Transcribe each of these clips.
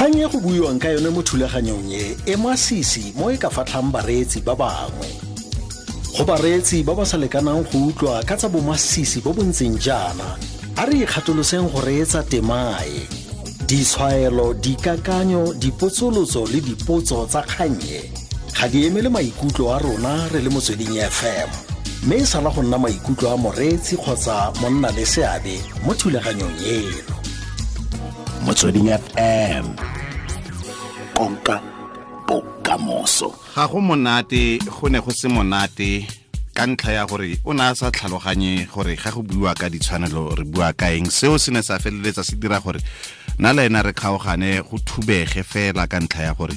Kgang e go buiwang ka yone mo thulaganyong e e masisi mo e ka fatlhang bareetsi ba bangwe. Go bareetsi ba ba sa lekanang go utlwa ka tsa bomasisi bo bo ntseng jaana, a re ikgatoloseng go reetsa temae. Ditshwaelo, dikakanyo, dipotsolotso le dipotso tsa kgannye ga di emele maikutlo a rona re le Motsweding FM, mme e sala go nna maikutlo a moreetsi kgotsa monna le seabe mo thulaganyong eno. Motsweding FM, konka bokamoso. Ga go monate, go ne go se monate ka ntlha ya gore o ne a sa tlhaloganye gore ga go buiwa ka ditshwanelo re bua ka eng. Seo se ne sa feleletsa se dira gore nna le ena re kgaogane, go thubege fela ka ntlha ya gore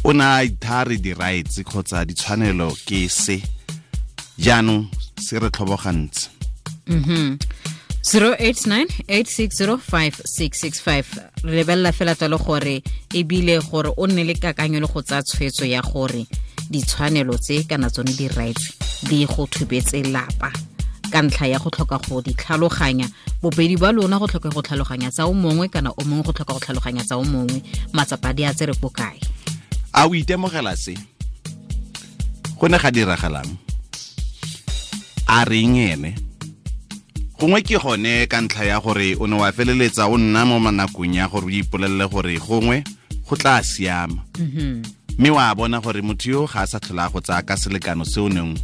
o ne a ithare di-rights kgotsa ditshwanelo ke se. Jaanong se re tlhobogantse. 089 860 5665. Re lebelela fela tsalo gore ebile gore o nne le kakanyo le go tsaya tshwetso ya gore ditshwanelo tse kana tsone di-rights di go thubetse lapa ka ntlha ya go tlhoka go di tlhaloganya, bobedi ba lona go tlhoka go tlhaloganya tsa o mongwe kana o mongwe go tlhoka go tlhaloganya tsa o mongwe, matsapa di a tsere ko kae? A o itemogela se? Go ne ga diragalang? A reng ene? Gongwe ke gone ka ntlha ya gore o ne wa feleletsa o nna mo manakong ya gore o ipolelele gore gongwe go tla siama, mme wa bona gore motho yo ga a sa tlhola go tsaya ka selekano se o neng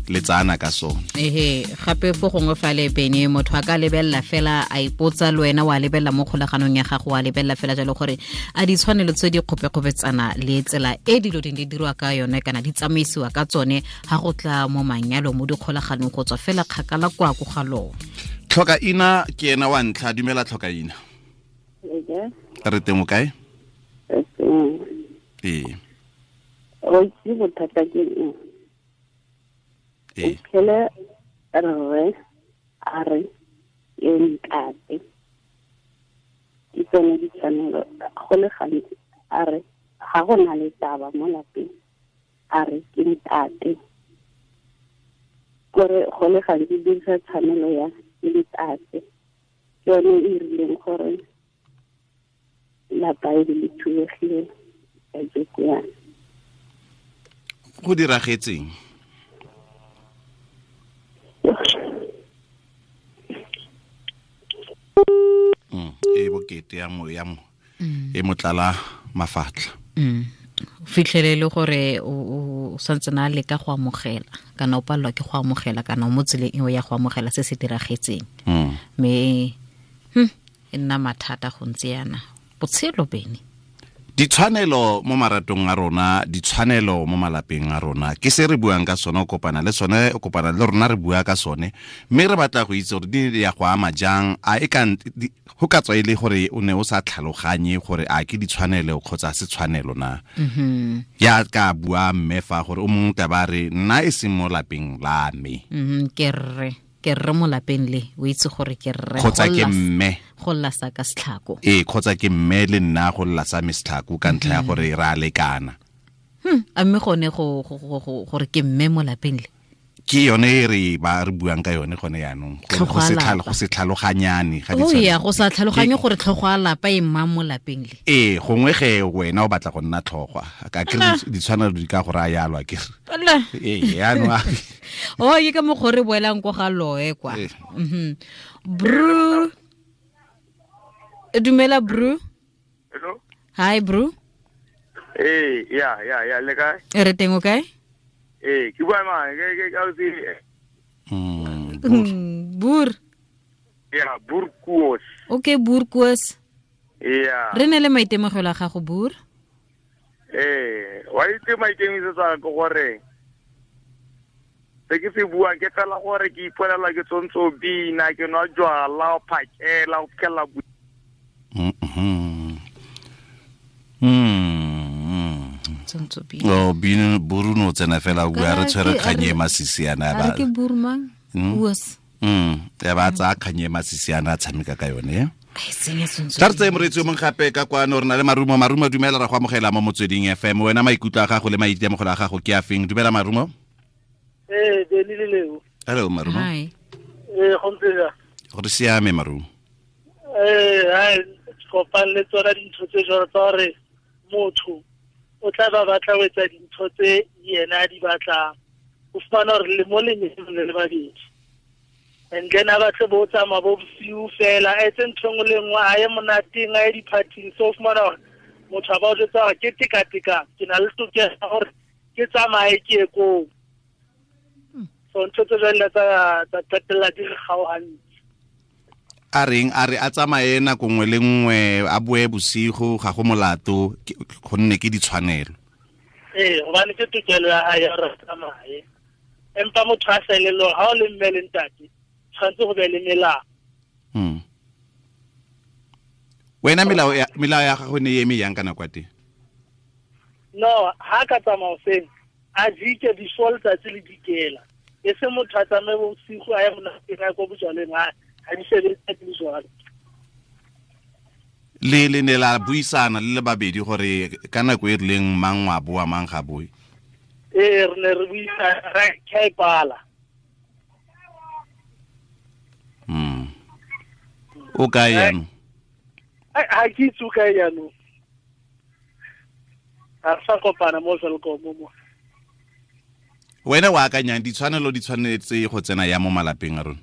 le tsana ka sone. Ehe, gape fo gongwe fa le bene motho a ka lebelela fela a ipotsa, le wena wa lebelela mo kgolaganong ya gago, wa lebelela fela jalo gore a ditshwanelo tse di kgopekgopetsana le tsela e dilo ding di dirwa ka yone kana di tsamaisiwa ka tsone ga go tla mo manyalo, mo dikgolaganong, go tswa fela kgakala kwa ko ga lone. Tlhoka ina ke ena wa ntlha. Dumela, tlhoka ina. Re teng, o kae? Ee. O itse bothata ke eng? Ee. Phele rre a re ke ntate, ke tsone ditshwanelo. Go le gantsi a re ga go na le taba mo lapeng, a re ke ntate, kore go le gantsi dirisa tshwanelo ya ke ntate. Ke yone e rileng gore lapa e le thubegile kajeko yana. Go diragetseng? E bokete ya mo e motlala mafatlha. Fitlhele le gore o santse na leka go amogela kana o palelwa ke go amogela kana o mo tseleng eo ya go amogela se se diragetseng, mme e nna mathata go ntse yana botshelo bene. Ditshwanelo mo maratong a rona, ditshwanelo mo malapeng a rona, ke se re buang ka sone. O kopana le sone, o kopana le rona, re bua ka sone, mme re batla go itse gore di ya go ama jang. A e ka go ka tswa e le gore o ne o sa tlhaloganye gore a ke ditshwanelo kgotsa se tshwanelo na? Ya ka bua mme fa gore o mongwe tla ba re nna e seng mo lapeng la me. Ke rre mo lapeng le, o itse gore ke rre. Kgotsa ke mme. Go lla sa ka setlhako. Ee, kgotsa ke mme le nna go lla sa me setlhako ka ntlha ya gore re a lekana. A mme gone gore ke mme mo lapeng le. Ke yone e re ba re buang ka yone gone yaanong, gore Tlhogo a lapa. go se tlhaloganyane ga O ya go sa tlhaloganye gore tlhogo a lapa e mmang mo lapeng le. Ee, gongwe ge wena o batla go nna tlhogwa ka ke ditshwanelo di ka go raya yalo, a kere? Ala. Ee, yaanong O ke ka mokgwa o re boelang ko ga loe kwa. Ee. Bru, dumela bru. Hello. Hi bru. Eh, ya, le kae? Re teng, o kae? Eh, ke bua mang? Ke ausi. Bur. Ya, Burkuos. Okay, Burkuos. Ya. Re ne le maitemogelo a gago, bur. Eh, wa itse maikemisetso a ke gore se ke se buang ke fela gore ke ipolela ke tsontse o bina, ke nwa jwala o phakela o fitlhelela Tsontso bina. O bino buru no tsena fela o bua re tshwere kganye e masisi yana A re ke bur mang? Uos. Ya ba tsaya kganye e masisi yana a tshameka ka yone. A e senya tsontso. Tla re tseye moreetsi o mongwe gape ka kwano. Re na le Marumo. Marumo, dumela, ra go amogela mo Motsweding FM. Wena maikutlo a gago le maitemogelo a gago ke a feng? Dumela, Marumo. Ee, Beni le Leo. Hello, Marumo. Hi. Ee, go ntse jang? Gore siame, Marumo. Ee, hai. Kopane le tsona dintho tse jwalo tsa hore motho o tla ba batla ho etsa dintho tse yena a di batlang. O fumana hore le mo lenyalong le le babedi. And then a batle bo tsamaya bo bosiu fela, a etse ntho e nngwe le nngwe, a ye monateng, a ye di-party-ing. So o fumana hore motho a ba o jwetsa hore ke teka-tekano, ke na le tokelo ya hore ke tsamaye ke ye koo. So ntho tse jwalo tsa qetella di re kgaohantse. A reng a re a tsamaye nako nngwe le nngwe, a boe bosigo, ga go molato, gonne ke ditshwanelo. Ee, hobane ke tokelo ya hae ya hore a tsamaye. Empa motho a sa elellwe hore ha o le mme le ntate, tshwanetse go be le melao. Wena melao ya gago ne e eme yang ka nako ya teng? No, ha ka tsamaya hoseng, a jike before letsatsi le dikela. E se motho a tsamaye bosigo a ye monateng, a ye ko bojalweng, ha di sebetse di le jwalo. Le ne la buisana le le babedi gore ka nako e rileng mang wa boa, mang ga boe? Ee, re ne re buisana, ra ke a e pala. O kae jaanong? Ha ke itse o kae jaanong. Ha re sa kopana mo Welkom mo. Wena o akanyang ditshwanelo di tshwanetse go tsena ya mo malapeng a rona?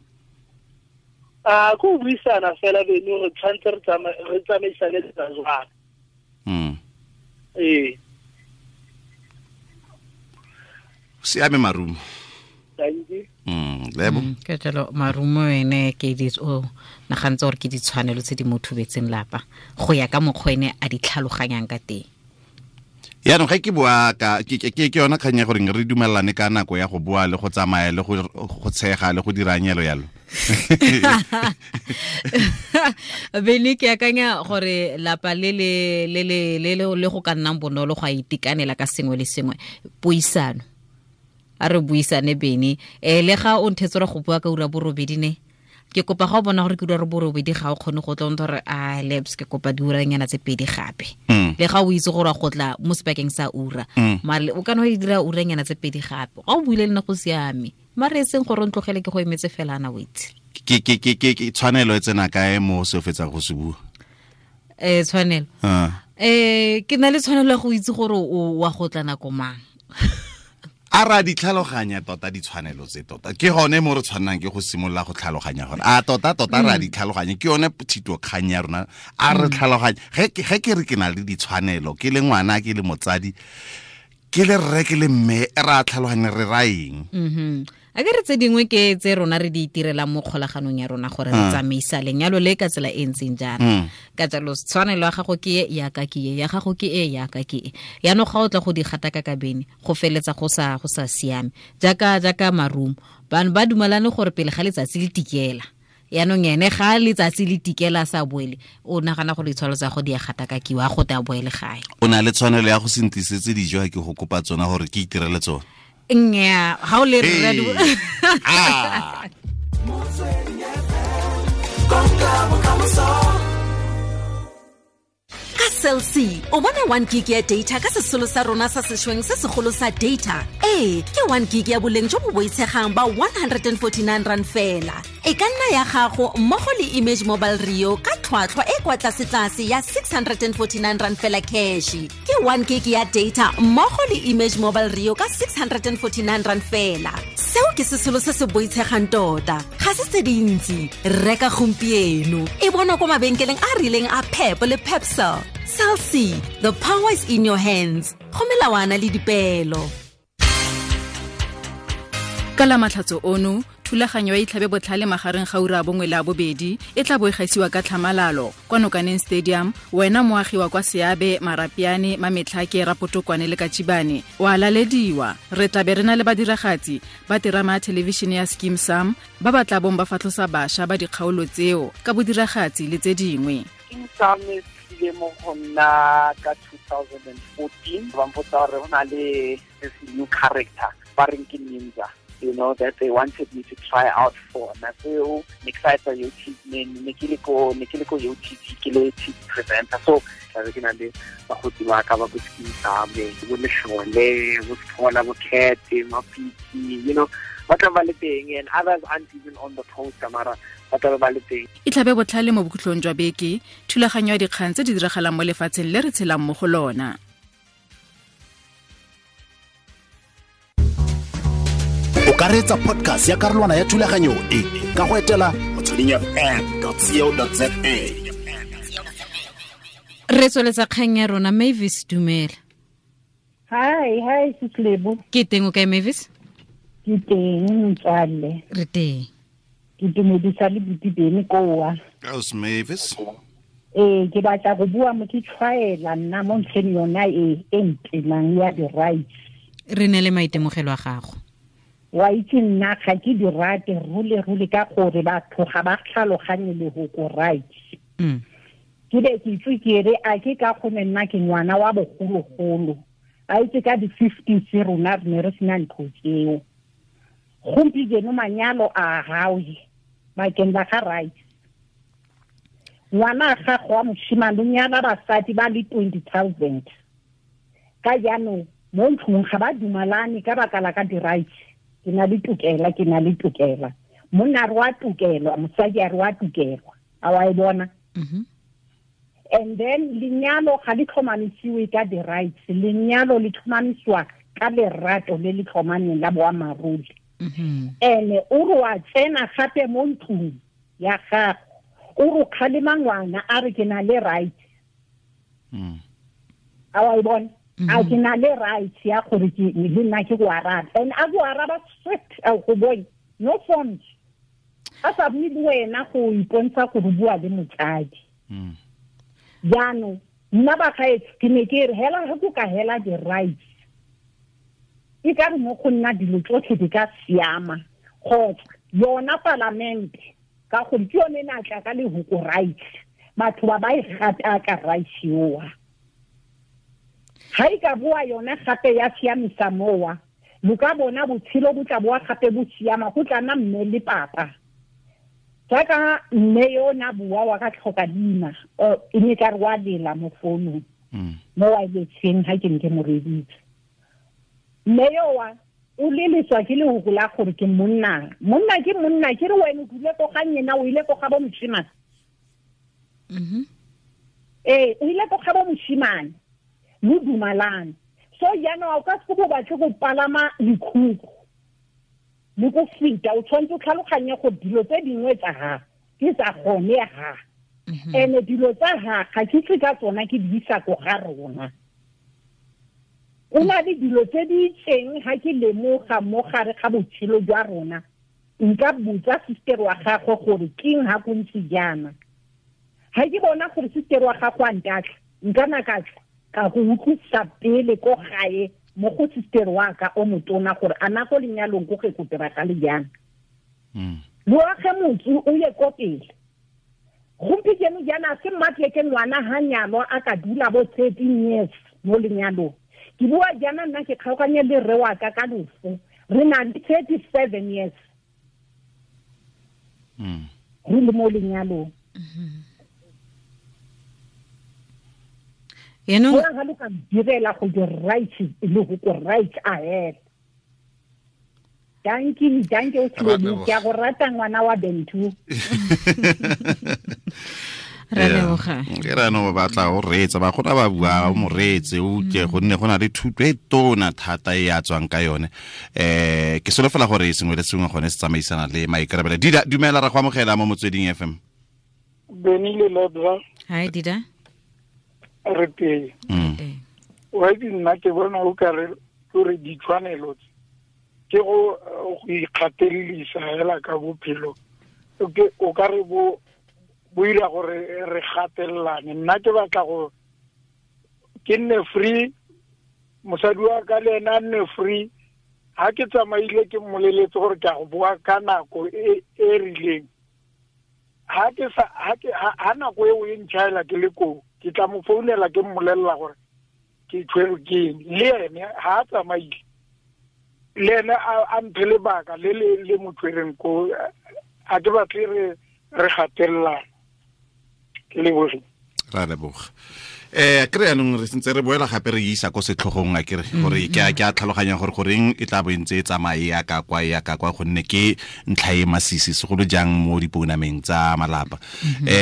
A go buisana fela beno re tshwanetse re tsamaisane le tsa jwang. Ee. Siame Marumo. Thank you. Lebo. Ke jalo Marumo ene ke di o nagantse gore ke ditshwanelo tse di mo thubetseng lapa go ya ka mokgwa ene a di tlhaloganyang ka teng. Yaanong ge ke bua ka ke yona kgang ya gore re dumelane ka nako ya go bua le go tsamaya le go tshega le go dira nyelo yalo. Bene ke akanya gore lapa le le le le le go ka nnang bonolo go a itekanela ka sengwe le sengwe, puisano. A re buisane bene. Le ga o nthetse go bua ka ura borobedi ne, ke kopa ga o bona gore ke ura borobedi ga o kgone go tla o ntse gore a lebs ke kopa diuranyana tse pedi gape. Le ga o itse gore go tla mo sebakeng sa ura, mare o kana o dira uranyana tse pedi gape. Ga o buile le nna go siame, mare e seng gore o ntlogele ke go emetse fela ana o itse. Ke tshwanelo e tsena kae mo se o fetsang go se bua? Tshwanelo. Ke na le tshwanelo ya go itse gore o wa go tla nako mang. A ra di tlhaloganya tota ditshwanelo tse tota. Ke gone mo re tshwannang ke go simolola go tlhaloganya gore a tota tota ra di tlhaloganya. Ke yone thito kgang ya rona. A re tlhaloganya. Ge ke re ke na le ditshwanelo, ke le ngwana, ke le motsadi, ke le rre, ke le mme, ra tlhaloganya re ra eng? A ke re tse dingwe ke tse rona re di itirelang mo kgolaganong ya rona gore re tsamaisa lenyalo le ka tsela e ntseng jaana. Ka jalo tshwanelo ya gago ke e, ya ka ke e, ya gago ke e, ya ka ke e. Yaanong ga o tla go di gataka ka bene, go feletsa go sa siame. Jaaka Marumo, bano ba dumalane gore pele ga letsatsi le tikela. Yaanong ene ga letsatsi le tikela sa boele, o nagana gore ditshwanelo tsa go di a gatakakiwa, a go te a boele gae. O na le tshwanelo ya go se ntlisetse dijo ha ke go kopa tsona gore ke itirele tsona. Nnyaa, ga o le rre Ka Cell C, o bona 1 gig ya data ka sesolo sa rona sa sešweng se segolo sa data. Ee, ke 1 gig ya boleng jo bo boitshegang ba 149 rand fela. E ka nna ya gago mmogo le Image Mobile Rio ka tlhwatlhwa e kwa tlasetlase ya 649 rand fela cash. Ke 1 gig ya data mmogo le Image Mobile Rio ka 649 rand fela. Seo ke sesolo se se boitshegang tota. Ga se tse dintsi. Reka gompieno. E bonwa kwa mabenkeleng a rileng a Pep le Pepsel. Cell C, the power is in your hands. Go melawana le dipeelo. Ka la matlhatso ono, thulaganyo ya Itlhabe Botlhale magareng ga ura 1 le 2 e tla bo e gaisiwa ka tlhamalalo kwa Nokaneng Stadium. Wena moagi wa kwa Seabe, Marapiane, Mametlhake, Rapotokwane le Katjibane o a lalediwa. Re tla be re na le badiragatsi ba terama ya thelebišene ya Skeem Saam ba ba tla bong ba fatlhosa bašwa ba dikgaolo tseo ka bodiragatsi le tse dingwe. Skeem Saam e tlile mo go nna ka 2014, ba mpotsa gore go na le this new character ba reng ke Ninja. you know, that they wanted me to try out for. Nako ne ke sa etsa UTV, ne ke le ko UTV, ke le TV presenter. So tla ke na le bagotsi ba ka ba bo Skeem Saam, bo Leshole, bo Sephola, bo Cat, Mapitsi, you know, Ba tla ba le teng, and others aren't even on the poster, mara ba tla ba le teng. Itlhabe botlhale mo bokhutlong jwa beke, thulaganyo ya dikgang tse di diragalang mo lefatsheng le re tshelang mo go lona. O ka reetsa podcast ya karolwana ya thulaganyo e ka go etela motswedingfm.co.za. Re tsweletsa kgang ya rona. Mavis, dumela. Hi Sislebo. Ke teng, o kae Mavis? Ke teng motswalle. Re teng. Ke dumedisa le buti Bene koa. How's Mavis? Ke batla go bua mo ke tshwaela nna mo ntlheng yona e ntenang ya di-rights. Re ne le maitemogelo a gago. Wa itse nna ga ke di rate rule ka gore batho ga ba tlhaloganye lehoko rights. Ke be ke itse ke re a ke ka gone nna ke ngwana wa bogologolo. A itse ka di-50s rona re ne re sena ntho tseo. Gompieno manyalo a gawe bakeng la ga rights. Ngwana gago wa moshimane o nyala basadi ba le 20,000. Ka jaanong mo ntlong ga ba dumalane ka baka la ka di-rights. Ke na le tokela. Monna re wa tokelwa, mosadi a re wa tokelwa. A wa e bona? And then lenyalo ga le tlhomamisiwe ka di-rights. Lenyalo le tlhomamisiwa ka lerato le le tlhomameng la boammaaruri. Ene o re wa tsena gape mo ntlong ya gago, o re kgalema ngwana a re ke na le rights. A wa e bona? A ke na le rights ya gore ke le nna ke go araba. And a go araba straight, a go bone no forms. A sa bue le wena go ipontsha gore bua le motsadi. Jaanong nna bagaetsho ke ne ke re hela ge ko ka hela di-rights, e ka re mo go nna dilo tsotlhe di ka siama. Kgotsa yona palamente, ka gore ke yone e ne a tla ka lehoko rights, batho ba ba e gataka rights yoa. Ga e ka boa yona gape ya siamisa mowa, lo ka bona botshelo bo tla boa gape bo siama, go tla nna mme le papa. Jaaka mme yo na bua wa ka tlhoka leina, e ne ka re wa lela mo founung, mo wirelesseng ga ke ne ke mo reeditse. Mme yo wa o leleswa ke lehoko la gore ke monna. Monna ke monna, ke re wena o dule ko ga nyena, o ile ko ga bo moshimane. Ee, o ile ko ga bo moshimane, lo dumalane. So jaanong o ka se bo batle go palama lekhukhu le go feta, o tshwanetse o tlhaloganye gore dilo tse dingwe tsa ga ke tsa gone ga. Ene dilo tsa ga ga ke tle ka tsona ke di isa ko ga rona. O na le dilo tse di itseng ga ke lemoga mo gare ga botshelo jwa rona, nka botsa sister wa gagwe gore keng ha go ntse jaana. Ga ke bona gore sister wa gagwe a ntatla, nka na ka tla ka go utlwisa pele ko gae mo go sister wa ka o motona gore a na go lenyalong ko ge go diragale jang. Lo age motse o ye ko pele. Gompieno jaana se mmatle ke ngwana ha nyalwa a ka dula bo 13 years mo lenyalong. Ke bua jaana nna ke kgaoganye le rre wa ka ka loso, re na le 37 years re le mo lenyalong. Yaanong ga lo ka direla go di-rights le go ko rights ahead. Dankie, o tlile ke a go rata ngwana wa Bentu. Ra leboga. Ke ra no ba batla o reetsa, ba gona ba bua o mo reetse o utlwe, gonne go na le thuto e tona thata e a tswang ka yone. Ke solofela gore sengwe le sengwe gone se tsamaisana le maikarabelo. Dida, dumela, ra go amogela mo Motsweding FM. Beni le Lodra. Hi Dida. Re teng. Wa itse nna ke bona o ka re gore ditshwanelo tse ke go ikgatelelisa hela ka bophelo, o ka re bo ira gore re gatelelane. Nna ke batla go ke nne free, mosadi wa ka le ena a nne free. Ha ke tsamaile ke mmoleletse gore ke a go boa ka nako e rileng. Ha ke sa ha nako eo e ntšhaela ke le koo, ke tla mo founela ke mmolelela gore ke tshwerwe ke eng. Le ene ha a tsamaile, le ene a mphe lebaka le le mo tshwereng koo. A ke batle re gatelelana. Ke lebogile. Ra leboga. Kry yanong re sentse re boela gape re isa ko setlhogong a kere gore ke a tlhaloganya gore goreng e tla bo ntse e tsamaye ya ka kwa ya ka kwa gonne ke ntlha e masisi segolo jang mo dipounameng tsa malapa.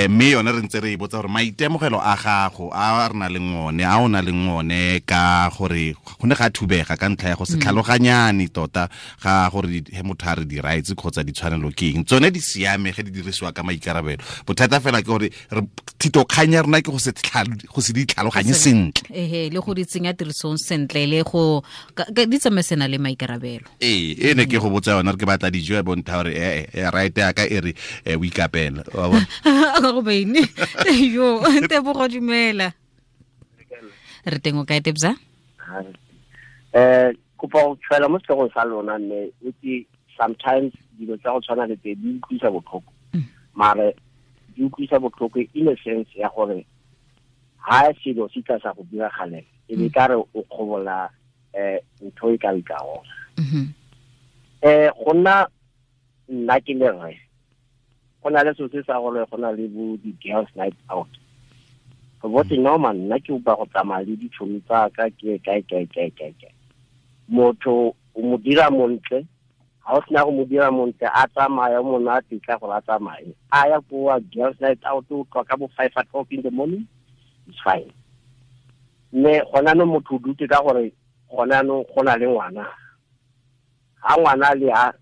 Mme yone re ntse re e botsa gore maitemogelo a gago a re na leng one a o na leng one ka gore go ne ga thubega ka ntlha ya go se tlhaloganyane tota ga gore he motho a re di-rights kgotsa ditshwanelo ke eng, tsone di siame ge di dirisiwa ka maikarabelo. Bothata fela ke gore thitokgang ya rona ke go se di tlhaloganye sentle ehe le go di tsenya tirisong sentle le go di tsamaisana le maikarabelo. E ne ke go botsa yona re ke batla dijo ya bontha gore right ya ka e re o ikapela wa bona go beine yo Tebogo dumela re teng o kae Tebza? Kopa go tshwela mo setlhogong sa lona mme itse sometimes dilo tsa go tshwana le tse di utlwisa botlhoko, mare di utlwisa botlhoko in a sense ya gore ha selo se tla sa go diragalela e be ka re o kgobola ntho e ka ikao. Go nna nna ke le rre go na le selo se sa gore go na le bo di-girls night out. Go botse normal nna ke upa go tsamaya le ditšhomi tsa ka ke kae kae kae kae kae. Motho o mo dira montle, ha o sena go mo dira montle a tsamaya monate tla gore a tsamaye a ya koa girls night out o tloga ka bo 5 o'clock in the morning. It's fine. Mme gona no motho o dutse ka gore gona no go na le ngwana. Ha ngwana le ha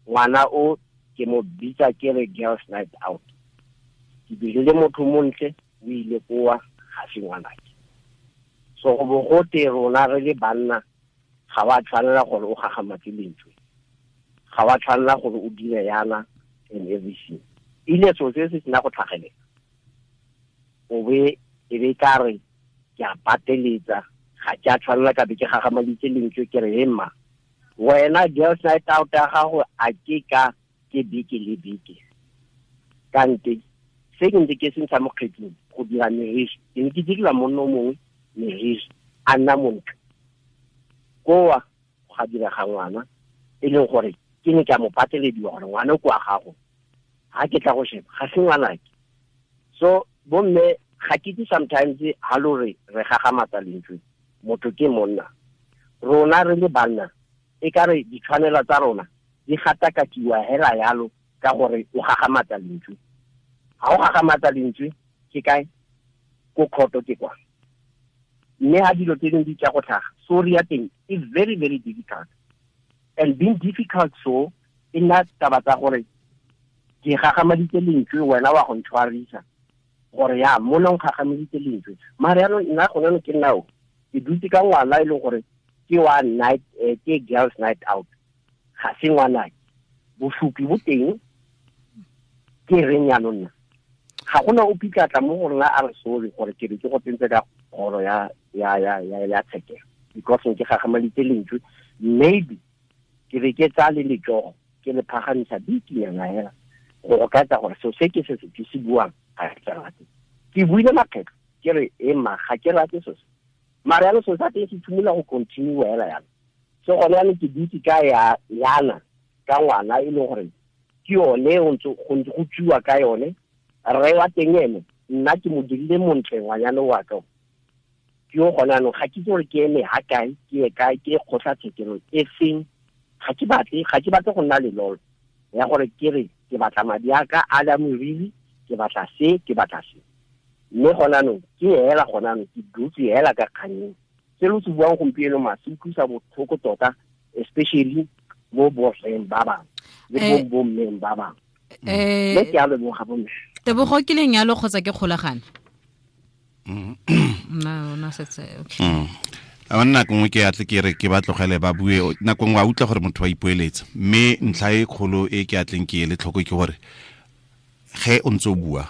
ngwana o ke mo bitsa ke re girls night out. Ke dirile motho montle o ile koa ga se ngwanake. So go bo go te rona re le banna ga wa tshwanela gore o gagamatse lentswe. Ga wa tshwanela gore o dire yana and everything. Ile so se se sena go tlhagelela. O be e be ka re ke a pateletsa ga ke a tshwanela ka be ke gagamaditse lentswe ke re emma wena girls night out ya gago a ke ka ke beke le beke. Kante se ke ntse ke se ntsha mo kgetsing go dira meriri ke ne ke direla monna o mongwe meriri a nna montle koa ga direga ngwana e leng gore ke ne ke a mo patelediwa gore ngwana o kwa gago ga ke tla go sheba ga se ngwanake. So bomme ga ke itse sometimes ha lo re re gagamatsa lentswe motho ke monna rona re le banna e ka re ditshwanelo tsa rona di gatakakiwa hela yalo ka gore o gagamatsa lentswe. Ha o gagamatsa lentswe ke kae ko khoto ke kwa mme ha dilo tse dingwe di tla go tlhaga sorry ya teng is very very difficult and being difficult so e nna taba tsa gore ke gagamaditse lentswe wena wa go ntshwarisa gore ya mona o gagamaditse lentswe mare yaanong nna gone ke nnao ke dutse ka ngwana e leng gore ke wa night ke girls night out ga se ngwanake bosupi bo teng ke reng yaanong nna ga gona o pitlatla mo go rona a re sorry gore ke re ke go tsentse ka kgoro ya ya ya ya ya tshekelo because ke gagamaditse lentswe maybe ke re ke tsa le letsogo ke le phagamisa bikinyana hela go ka tsa gore seo se ke se ke se buang ga ke rate. Ke buile makgetlo ke re ema ga ke rate so se mare yaanong seo sa teng se tshimola go continue hela yana. So gone yaanong ke dutse ka ya yana ka ngwana e leng gore ke yone go ntse go tsuwa ka yone rre wa teng ene nna ke mo dirile montle ngwanyana wa ka ke yo gone yaanong ga ke itse gore ke eme ha kae ke ye kae ke kgotlatshekelo e feng. Ga ke batle go nna lelolo ya gore ke re ke batla madi a ka a la moriri ke batla se ke batla se mme gona anong ke hela gona anong ke dutse hela ka kganyeng. Se lo se buang gompieno ma se utlwisa botlhoko tota especially mo borreng ba bangwe le bo bommeng ba bangwe. Mme ke a leboga bomme. Tebogo ke lenyalo kgotsa ke kgolagano? Nna ona setse okay. A nna nngwe ke atle ke re ke ba tlogele ba bue nako nngwe a utlwa gore motho wa ipoeletsa mme ntlha e kgolo e ke atleng ke ele tlhoko ke gore ge o ntse o bua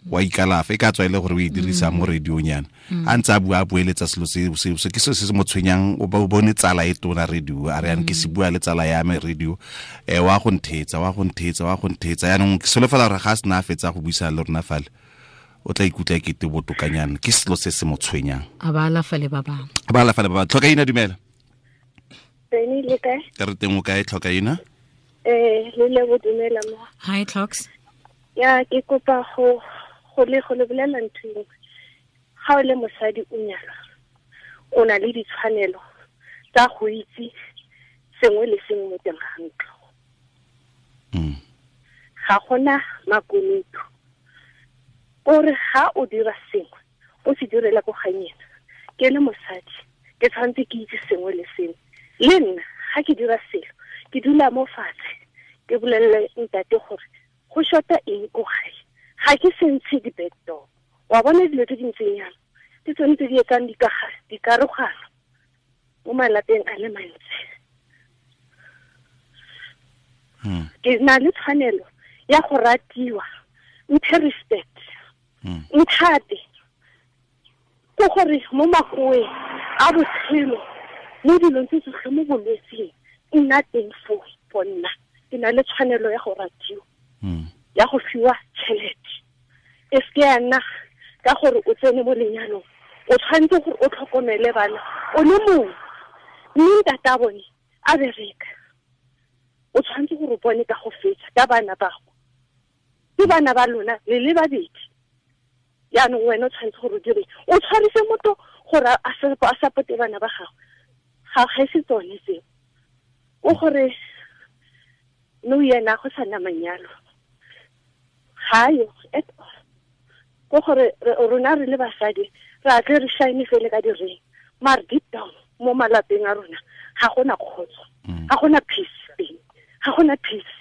wa ikalafa e ka tswa e le gore o e dirisa mo radiong yana a ntse a bua a boeletsa selo se ke selo se se mo tshwenyang o bone tsala e tona radio a re yang ke se bua le tsala ya me radio wa go ntheetsa wa go ntheetsa wa go ntheetsa yaanong ke solofela gore ga a sena a fetsa go buisana le rona fale o tla ikutlwa e kete botokanyana ke selo se se mo tshwenyang a ba alafa le ba bangwe a ba alafa le ba bangwe. Tlhokaina dumela. Teng le kae? Ke re teng o kae Tlhokaina? Le le dumela mo. Hi Tlhoks. Ya ke kopa go le bolela ntho engwe. Ga o le mosadi o nyalwa, o na le ditshwanelo tsa go itse sengwe le sengwe mo teng ga ntlo. Ga gona makunutu. Kore ga o dira sengwe, o se direla ko ganyena. Ke le mosadi, ke tshwanetse ke itse sengwe le sengwe. Le nna ga ke dira selo, ke dula mo fatshe, ke bolelele ntate gore go shota eng ko gae. Ga ke se ntshe di-back door. Wa bona dilo tse di ntseng jalo, ke tsone tse di etsang dikarogano mo malapeng a le mantsi. Ke na le tshwanelo ya go ratiwa, mphe respect, nthate. Ke gore mo makoeng a botshelo, mo dilong tse tsotlhe, mo bolwetseng, nna teng foo for nna. Ke na le tshwanelo ya go ratiwa, ya go fiwa tšhelete. E seke ya nna ka gore o tsene mo lenyalong, o tshwanetse gore o tlhokomele bana o le mongwe, mme ntate a bone a bereka. O tshwanetse gore o bone ka go fetsa ka bana bago. Ke bana ba lona le le babedi. Jaanong wena o tshwanetse gore o dire, o tshwarise motho gore a supporte bana ba gago. Ga e se tsone tseo. O gore nou yena go sa nna manyalo. Ga yo at all. Ko gore rona re le basadi re a tle re shine fele ka di-ring, mare deep down mo malapeng a rona ga gona kgotso, ga gona peace teng, ga gona peace.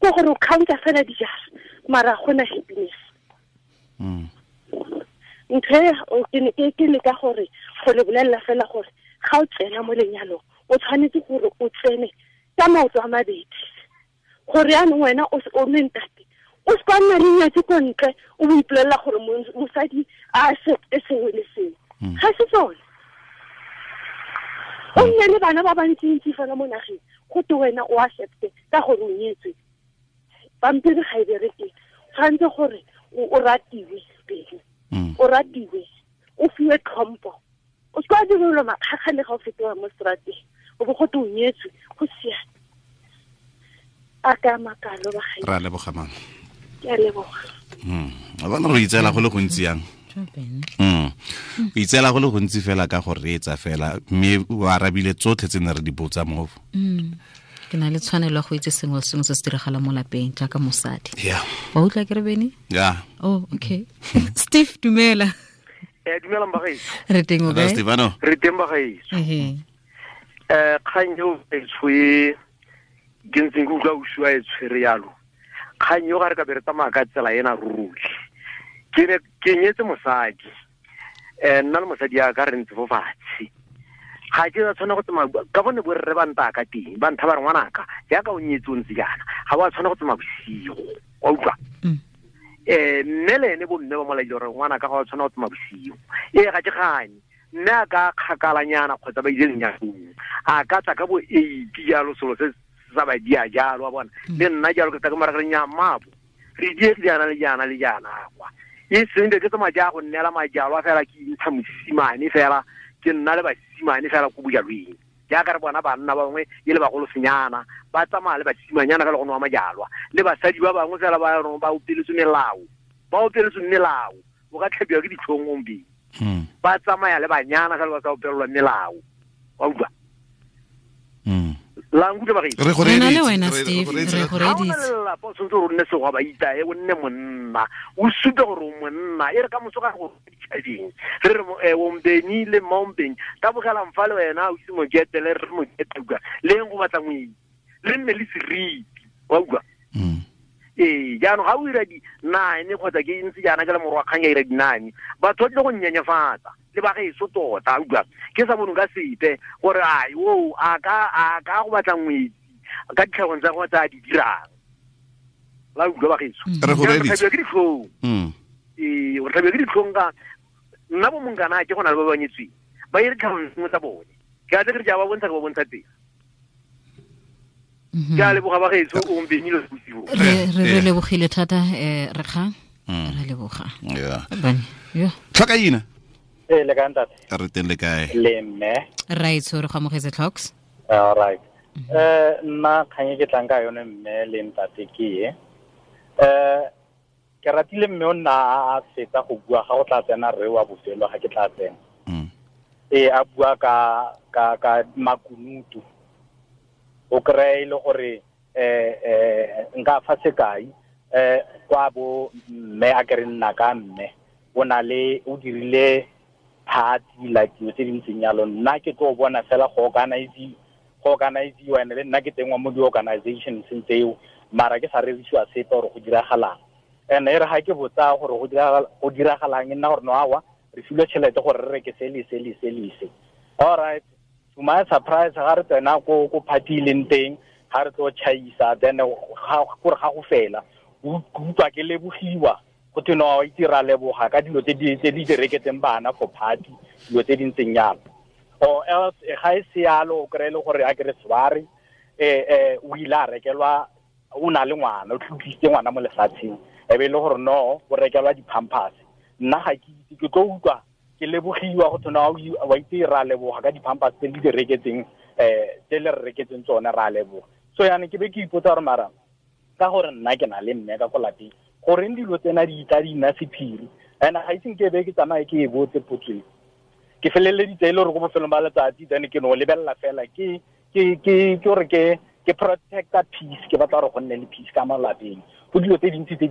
Ko gore o counta fela dijara, mara ga gona happiness. Ntho e ke leka gore go le bolelela fela gore ga o tsena mo lenyalong o tshwanetse gore o tsene ka maoto a mabedi, gore yaanong wena o le ntate o se ka nna le nyatsi ko ntle o bo ipolelela gore mosadi a accepte sengwe le sengwe. Ga se tsone. O nne le bana ba bantsintsi fela mo nageng, go te wena o accepte ka gore o nyetswe. Pampiri ga e bereke, tshwanetse gore o ratiwe pele, o ratiwe, o fiwe tlhompho. O se ka direlwa makgakga le ga o fetoga mo strateng, o bo go te o nyetswe, go siame. A ka makalo ba gae. Ra leboga mama. Ke a leboga. A bona re itseela go le gontsi yang? O itseela go le gontsi fela ka go reetsa fela, mme o arabile tsotlhe tse ne re di botsa mo. Ke na le tshwanelo ya go itse sengwe le sengwe se se diragalang mo lapeng jaaka mosadi. Wa utlwa ke re Bene? Yeah. Oh, okay. Steve, dumela. Dumela mbagaetso. Re teng o kae? Stefano. Re teng bagaetso. Kgang eo e tshwe ke ntseng ke utlwa o sua e tshwere yalo. Kgang eo ga re ka be re tsamaya ka tsela ena ruri. Ke ne ke nyetse mosadi. Nna le mosadi ya ka re ntse fo fatshe. Ga ke a tshwana go tsamaya ka bone bo rre ba nta ka teng, ba ntha ba re ngwanaka jaaka o nyetse o ntse jaana, ga wa tshwana go tsamaya bosigo. Wa utlwa? Mme le ene bo mme ba molaile gore ngwanaka ga wa tshwana go tsamaya bosigo. Ee, ga ke gane. Mme a ka kgakalanyana kgotsa ba ile lenyalong, a ka tla ka bo 8 jalo, selo se sa ba dia jalo, wa bona. Le nna jalo ke tla ke mara re nya mabo. Re die jaana le jaana le jaana kwa. E seng ke tsamaya ja go nnela majalo a fela ke intsha mosimane fela, ke nna le basimane fela ko bojalweng. Jaaka re bona banna ba bangwe e le bagolo senyana, ba tsamaya le basimanyana fela go nwa majalwa. Le basadi ba bangwe fela ba rong ba opeletswe melao. Ba opeletswe melao, o ka tlhabiwa ke ditlhong gompieno. Ba tsamaya le banyana fela ba sa opelelwa melao. Wa utlwa? La nkutlwa ba gaetsho? Re go Re na le reeditse, wena, re go Steve, reeditse. re go Ha o na le reeditse. lelapa, o tshwanetse gore o nne segwa ba itae, o nne monna, o supe gore o monna. E re ka moso ga go ditšhabeng, re re o Mbeni le mma o Mbeni, tabogelang fa le wena, o ise mokete, le re mokete, utlwa. Le eng go batla moedi, le nne le seriti, wa utlwa? Ee, jaanong ga o ira di-9 kgotsa ke ntse jaana ke le morwa kgang ya ira di-9, batho ba tlile go nnyenyefatsa le ba gaetsho tota, utlwa. Ke sa bonong ka sepe gore ai, o, a ka go batla ngwetsi ka ditlhagong tsa gagwe tse a di dirang. La utlwa ba gaetsho? Re go Jaanong re reeditse. tlhabiwa ke ditlhong. Ee, re tlhabiwa ke ditlhong ka nna bo monkana ke go na le ba ba nyetsweng, ba ire ditlhagong sengwe tsa bone. Ke a tle ke re ke a ba bontsha, ke ba bontsha teng. Ke a leboga ba gaetsho, o mpenile bosigo. Re lebogile thata, re kgang. Re leboga. Bane, yo. Tlhoka ina? Ee, le kae ntate? Re teng le kae? Le mme. Raetsho, re go amogetse Tlhoks. All right. Nna kgang e ke tlang ka yone mme le ntate ke e. Ke ratile mme o nna a fetsa go bua ga go tla tsena rre wa bofelo ga ke tla tsena. A bua ka makunutu. O kry-e le gore nka fa sekai kwa bo mme a kere nna ka mme o na le o dirile party like dilo tse di ntseng yalo. Nna ke tlo bona fela go organize-iwa ene le nna ke tengwa mo di-organizations tseo, mara ke sa rerisiwa sepe gore go diragalang. And e re ga ke botsa gore go diragalang e nna gore no awa re filwe tšhelete gore re reke se le se le se le se. All right, to my surprise ga re tsena ko party e leng teng, ga re tlo chaisa, then gore ga go fela utlwa ke lebogiwa go thwe no itse ra leboga ka dilo tse di direketseng bana for party, dilo tse di ntseng yalo. Or else ga e se yalo o kry-e le gore a ke re sware o ile a rekelwa, o na le ngwana, o tlotlisitse ngwana mo lefatsheng, e be e le gore no o rekelwa di-pampers. Nna ga ke itse, ke tlo utlwa ke lebogiwa go thwe no wa itse ra leboga ka di-pampers tse di direketseng tse le re reketseng tsone, ra leboga. So yana ke be ke ipotsa gore mara ka gore nna ke na le mme ka ko lapeng, goreng dilo tsena di tla di nna sephiri? And ga iseng ke be ke tsamaye ke e botse potso e. Ke feleleditse e le gore ko bofelong ba letsatsi then ke no lebelela fela ke gore ke protecta peace, ke batla gore go nne le peace ka mo lapeng. Go dilo tse dintsi tse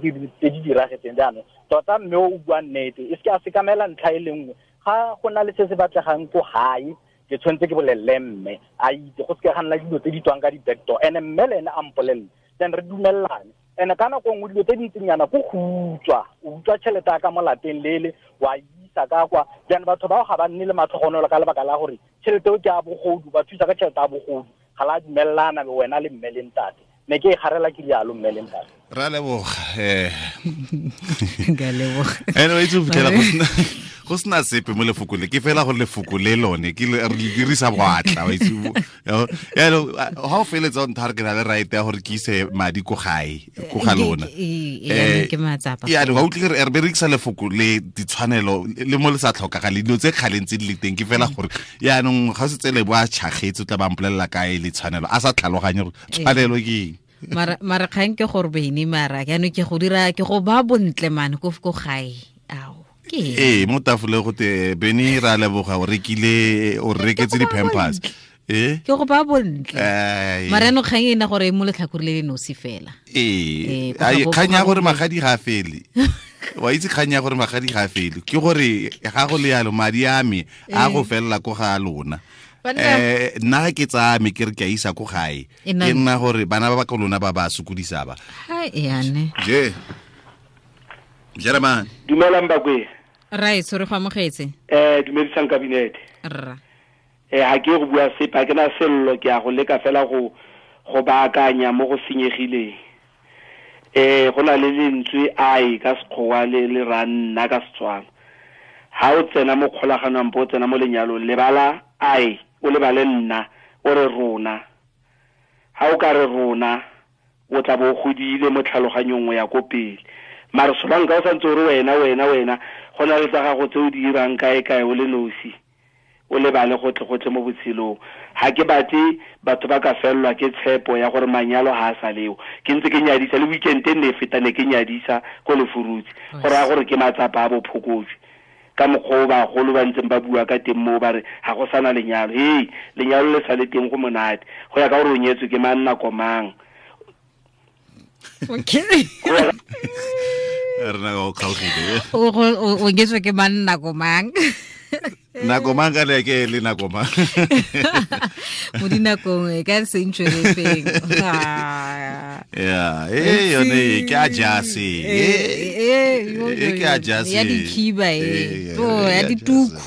di diragetseng jaanong. Tota mme o bua nnete, e seke a sekamela ntlha e le nngwe. Ga go na le se se batlegang ko gae, ke tshwanetse ke bolelele mme a itse, go seke ga nna dilo tse di tswang ka di-backdoor. And mme le ene a mpolelele, then re dumellane. And ka nako nngwe dilo tse di ntsinyana ko go utswa, o utswa tšhelete ya ka mo lapeng lele, wa isa ka kwa. Jaanong batho bao ga ba nne le matlhogonolo ka lebaka la gore tšhelete eo ke ya bogodu, ba thusa ka tšhelete ya bogodu, ga la dumellana le wena le mme le ntate. Ne ke e garela ke rialo mme le ntate. Ra leboga. Nka leboga. Anyway, itse go fitlhela go sena sepe mo lefoko le, ke fela gore lefoko le lone ke re le dirisa boatla, wa itse. Yaanong ga o feletsa o ntha re ke na le right ya gore ke ise madi ko gae, ko ga lona. Ke matsapa. Yaanong ga utlwe re berekisa lefoko le ditshwanelo le mo le sa tlhokagale, dilo tse kgaleng tse di le teng, ke fela gore yaanong ga o setse le bo a tšhagetse o tla ba mpolelela kae le tshwanelo, a sa tlhaloganye gore tshwanelo ke eng. Mara kgang ke gore bene mara jaanong ke go dira ke go ba bontle mane ko gae. Ao. Ee, mo tafoleng go te Bene ra leboga o rekile, o reketse di-pampers. Ke go ba bontle. Mara no kgang e nna gore mo letlhakore le le nosi fela. Ee, kgang ya gore magadi ga a fele. Wa itse kgang ya gore magadi ga a fele. Ke gore ga go le yalo madi a me a go felela ko ga lona. Nna ke tsaya me ke re ke a isa ko gae. Ke nna gore bana ba ba ko lona ba ba sokodisa ba. Ha yane. Je. Jeremane. Dumelang bakwe. Right, sorry go amogetse. Dumedisang kabinete. Rra. Ha ke go bua sepe, ha ke na sello, ke a go leka fela go baakanya mo go senyegileng. Go na le lentswe ai ka Sekgowa le ra nna ka Setswana. Ha o tsena mo kgolaganong bo tsena mo lenyalong, lebala ai, o lebale nna, o re rona. Ha o ka re rona, o tla bo godile mo tlhaloganyong ya ko pele. Mara solanka o santse o re wena wena wena, go na le tsa gago tse o di dirang kae kae o le nosi, o lebale gotlhe mo botshelong. Ha ke batle batho ba ka fellwa ke tshepo ya gore manyalo ha a sa leo. Ke ntse ke nyadisa le weekend e ne e feta ne ke nyadisa ko Lefurutse, go raya gore ke matsapa a bophokojwe. Ka mokgwa o bagolo ba ntseng ba bua ka teng moo ba re ga go sana lenyalo. Hei, lenyalo le sa le teng go monate, go ya ka gore o nyetswe ke mang nako mang. Okay. Re na go kgaogile. O nyetswe ke mang nako mang? Nako mang ka le ke le nako mang? Mo dinakong e ka se ntšwele feng. Yeah, yone ke a jase. Ke a jase. Ya dikhiba e. To ya dituku.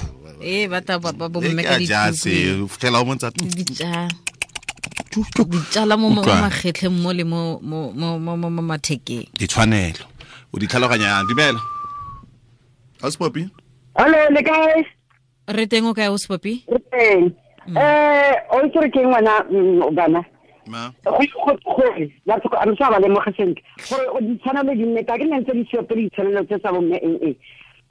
Ba ta ba bo mme ka dituku. Ke a jase, fitlhela o montsa ditsala mo magetleng mo le mo mo mo mo mathekeng. Ditshwanelo. O di tlhaloganya dumela. Auspopi? Hello, le kae? Re teng o kae Auspopi? Re teng. O itse re ke ngwana bana. Ma. Gore batho a re sa ba lemoga sentle. Gore ditshwanelo di nne ka ke nne ntse di sio pele ditshwanelo tse tsa bomme eng.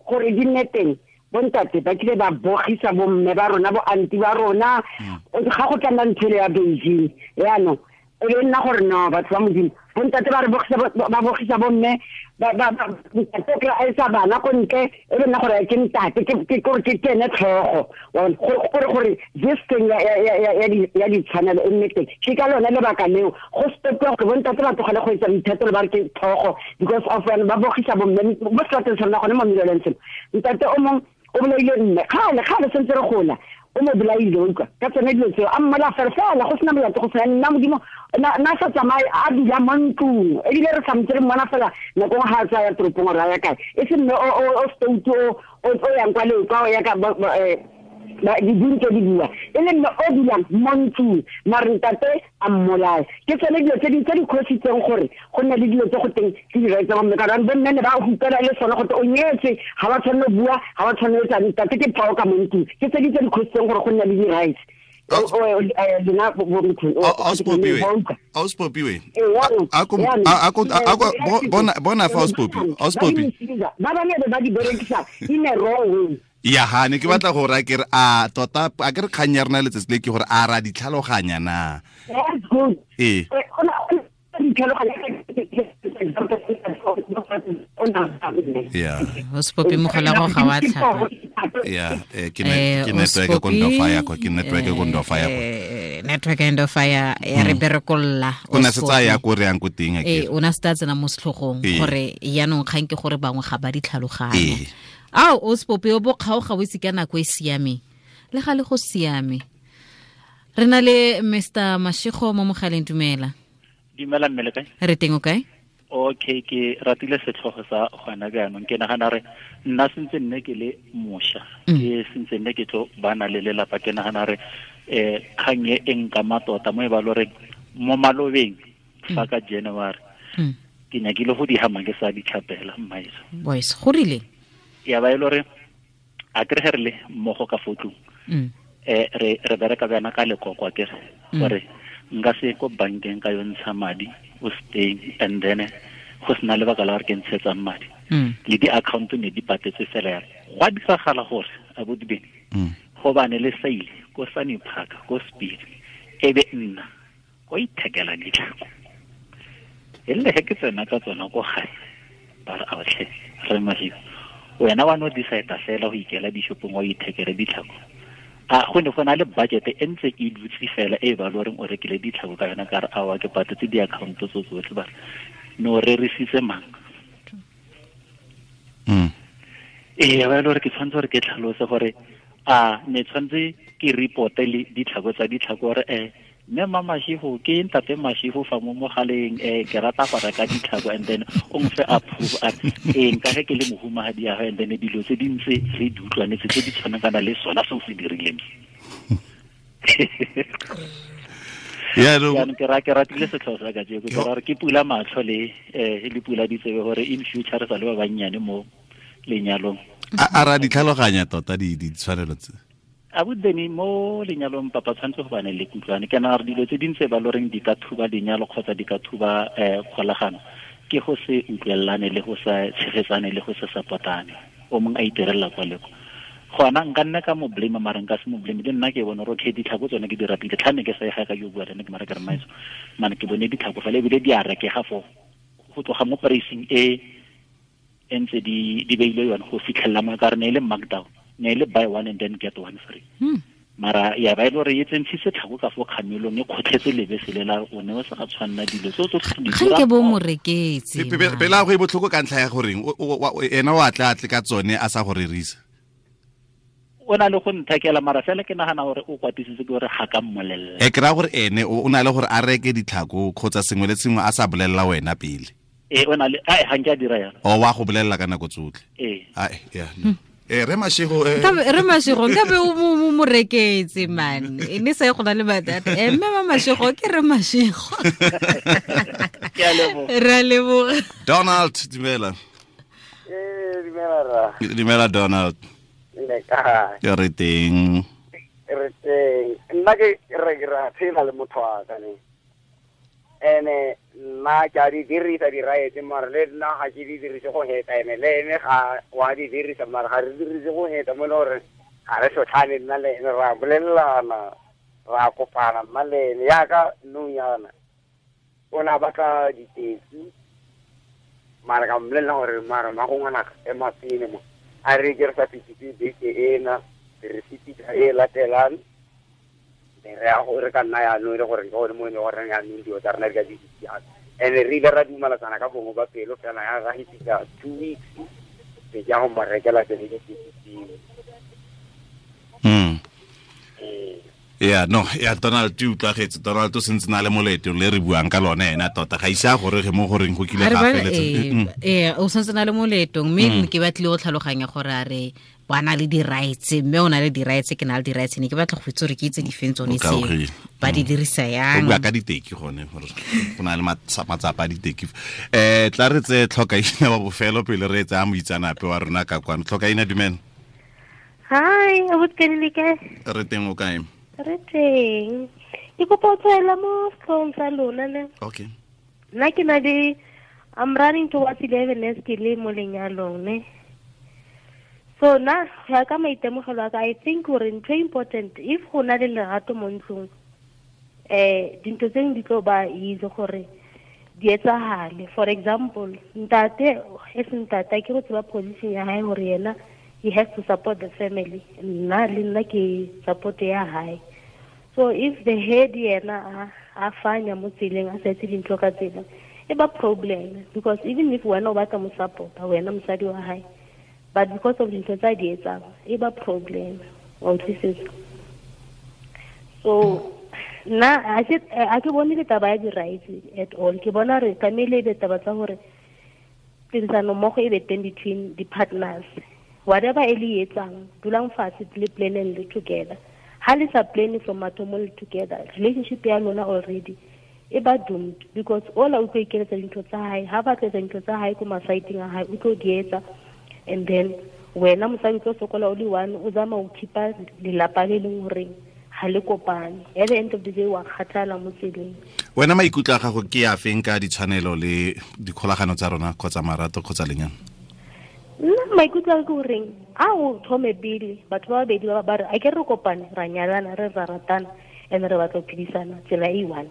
Gore di nne teng. Bontate ba kile ba bogisa bomme ba rona bo anti ba rona ga go tla nna ntho ya Beijing yaanong e be nna gore no batho ba Modimo Bontate ba re ba bogisa bomme ba ntate kry a isa bana ko ntle e be nna gore ke ntate ke gore ke ene tlhogo gore this thing ya ditshwanelo e nne teng. Ke ka lone lebaka leo go stopiwa gore bontate ba tlogele go etsa boithatelo ba re ke tlhogo because of ba bogisa bomme mo selateng sa rona gone mo Middlelands. Ntate o mongwe o bolaile mme kgale sentse re gola o mo bolaile utlwa ka tsone dilo tseo a mmala fela fela go sena molato go sena nna modimo na sa tsamaye a dula mo ntlong ebile re samtse re mmona fela nako nngwe ga a tsaya toropong gore a ya kae e se mme o stout o yang kwa le kwa o ya ka diding tse di bua e le mme o dulang mo ntlong mare ntate a mmolaya. Ke tsone dilo tse di khositseng gore go nne le dilo tse go teng ke di-rights tsa bomme ka gore bomme ne ba hupela le sone gote o nyetse ga ba tshwanne go bua ga ba tshwanne etsa ntate ke tlhogo ka mo ntlong. Ke tse di tse di khositseng gore go nne le di-rights. Auspopiwe bona fa Auspopiwe ba bangwe ba di berekisa in a wrong way. Ya ha ne ke batla go ra ke re a tota a ke re kgang ya rena letsatsi le ke gore a ra ditlhaloganya na. That's good. Ee. Yeah. Ospopi mogala go ga wa tlhapa. Yeah, ke network ko ndo fire ko ke network ko ndo fire ko. Network ndo fire ya re berekolla. O na se tsaya ko re yang ko teng a ke. O na se tsena mo setlhogong gore yanong kgang ke gore bangwe ga ba ditlhaloganya. Ao Ospopi o bo kgaoga o itse ka nako e siameng. Le ga le go siame. Re na le Mr Mashego mo mogaleng, dumela. Dumela mme le kae? Re teng o kae? Okay, ke ratile setlhogo sa gona jaanong. Ke nagana re nna sentse nne ke le mosha. Ke sentse nne ke tlo bana le lelapa. Ke nagana re kgang e e nkama tota mo e ba loreng mo malobeng fa ka January. Ke nyakile go di hama ke sa ditlhapela mmaetso. Boys, go rile? Ya ba e le gore a kere ge re le mmogo ka fo tlong re bereka bjana ka lekoko a kere gore nka se ko bankeng ka yo ntsha madi o staying and then go sena lebaka la gore ke ntshetsang madi le di-account ne di patetse fela yalo. Go a diragala gore abuti Bene gobane le saile ko Sunny Park ko Speed e be nna ko ithekela ditlhako e le ge ke tsena ka tsona ko gae ba re aotlhe re Mashego wena wa no decide fela go ikela dishopong wa ithekele ditlhako. A go ne go na le budget e ntse e dutse fela e ba loreng o rekile ditlhako ka yona ka re awa ke patetse di-account tso tsotlhe ba no rerisitse mang. Ee ba le gore ke tshwanetse gore ke tlhalose gore a ne tshwanetse ke reporte le ditlhako tsa ditlhako gore mme mma Mashego ke ntate Mashego fa mo mogaleng ke rata go reka ditlhako and then o mfe approve a nka ge ke le mohumagadi ya and then dilo tse di ntse re di utlwanetse tse di tshwanakana le sona seo se dirileng. Jaanong ke ratile setlhogo sa kajeko ke ra gore ke pula matlho le le pula ditsebe gore in future re sa le ba bannyane mo lenyalong. A ra ditlhaloganya tota ditshwanelo tse. Abuti mo lenyalong papa tshwanetse go bane le kutlwane. Ke nagana gore dilo tse dintse ba loreng di ka thuba lenyalo kgotsa di ka thuba kgolagano ke go se utlwelelane le go sa tshegetsane le go se supportane. O mongwe a iterela kwa le kwa. Gona nka nna ka mo blame mara nka se mo blame le nna ke bone gore okay ditlhako tsone ke di ratile tlhane ke sa e ga ka yo bua le nna ke mara ke re maiso mane ke bone ditlhako fela ebile di a rekega fo go tloga mo pricing e ntse di beile yone go fitlhelela mo ka re ne e le markdown. Ne le buy one and then get one free. Mara ya ba ile gore e tsentshitse tlhako ka fo kgamelong e kgotlhetse lebese le la o ne o sa ga tshwanna dilo tso tsotlhe di dira. Ke bo mo reketse. Pela go e botlhoko ka ntlha ya goreng ena o atla atle ka tsone a sa go rerisa. O na le go nthekela mara fela ke nagana gore o kwatisitse ke gore ga ka mmolella. E kra gore ene o na le gore a reke ditlhako kgotsa sengwe le sengwe a sa bolella wena pele. O na le ai ga nke a dira yalo. O wa go bolella ka nako tsotlhe. Ai ya. Re Mashego re Mashego nka be o mo reketse man e ne sa go na le batata mme ma Mashego ke re Mashego. Ke a leboga. Re a leboga. Donald dumela. Dumela ra. Dumela Donald. Le kae? Ke re teng. Re teng. Nna ke re ra phela le motho wa ka ne. Ene nna ke a di dirisa di-rights mara le nna ga ke di dirise go heta ene le ene ga wa di dirisa mara ga re dirise go heta mo e le gore ga re sotlhane nna le ene ra bolelelana ra kopana nna le ene yaka nong yana. O ne a batla diteki mara ka mmolelela gore mara ma go ngwanaka ema pele mo a re ke re sa fetise beke ena re fetisa e latelang re ya go re ka nna yaanong e le gore ke gone mo e le gore yaanong dilo tsa rena di ka di siame. And re ile ra dumalatsana ka bongwe ba pelo fela ya ra fetisa 2 weeks be ke ya go mo rekela tsone diteki tseo. Yeah, no, ya Donald o utlwagetse. Donald o sentse na le moleto le re buang ka lone ena tota ga ise a gore ge mo goreng go kile ga feletse. O sentse na le moletong mme ke batlile go tlhaloganya gore a re ba na le di-rights mme o na le di-rights ke na le di-rights ne ke batla go itse gore ke itse difeng tsone tseo ba di dirisa yang. O bua ka diteki gone gore go na le matsapa a diteki. Tla re tse Tlhokaina wa bofelo pele re tsaya moitsanape wa rona ka kwano. Tlhokaina, dumela. Hi, abuti le kae? Re teng, o kae? Re teng. Ke kopa ho tswela mo setlhong sa lona ne. Okay. Nna ke na le I'm running towards 11 years ke le mo lenyalong ne. So na go ya ka maitemogelo a ka, I think gore ntho e important if go na le lerato mo ntlong dintho tse dingwe di tlo ba easy gore di etsahale. For example, ntate e se ntate ke go tseba position ya hae gore yena he has to support the family. Nna le nna ke support ya hae. So if the head yena a fanya mo tseleng a sa etse dintho ka tsela e ba problem, because even if wena o batla mo support wena mosadi wa hae, but because of dintho tsa di etsang e ba problem. Wa utlwisisa? So nna a ke bone le taba ya di-rights at all. Ke bona re tlamehile e be taba tsa gore tirisano mmogo e be teng between the partners. Whatever e le etsang, dulang fatshe le planeng le together. Ha le sa planning from mathomo le together, relationship ya lona already e ba doomed, because all o tlo ikeletsa dintho tsa hae, ha ba tletsa dintho tsa hae ko masaiteng a hae, o tlo di etsa, and then wena mosadi o tlo sokola o le one, o zama o khipa lelapa le leng horeng ha le kopane. At the end of the day wa kgathala mo tseleng. Wena maikutlo a gago ke a feng ka ditshwanelo le dikgolagano tsa rona kgotsa marato kgotsa lenyalo? Nna maikutlo a ke goreng a o thome pele batho ba babedi ba re a ke re kopane ra nyalana re ra ratana and re batla go phedisana tsela e one.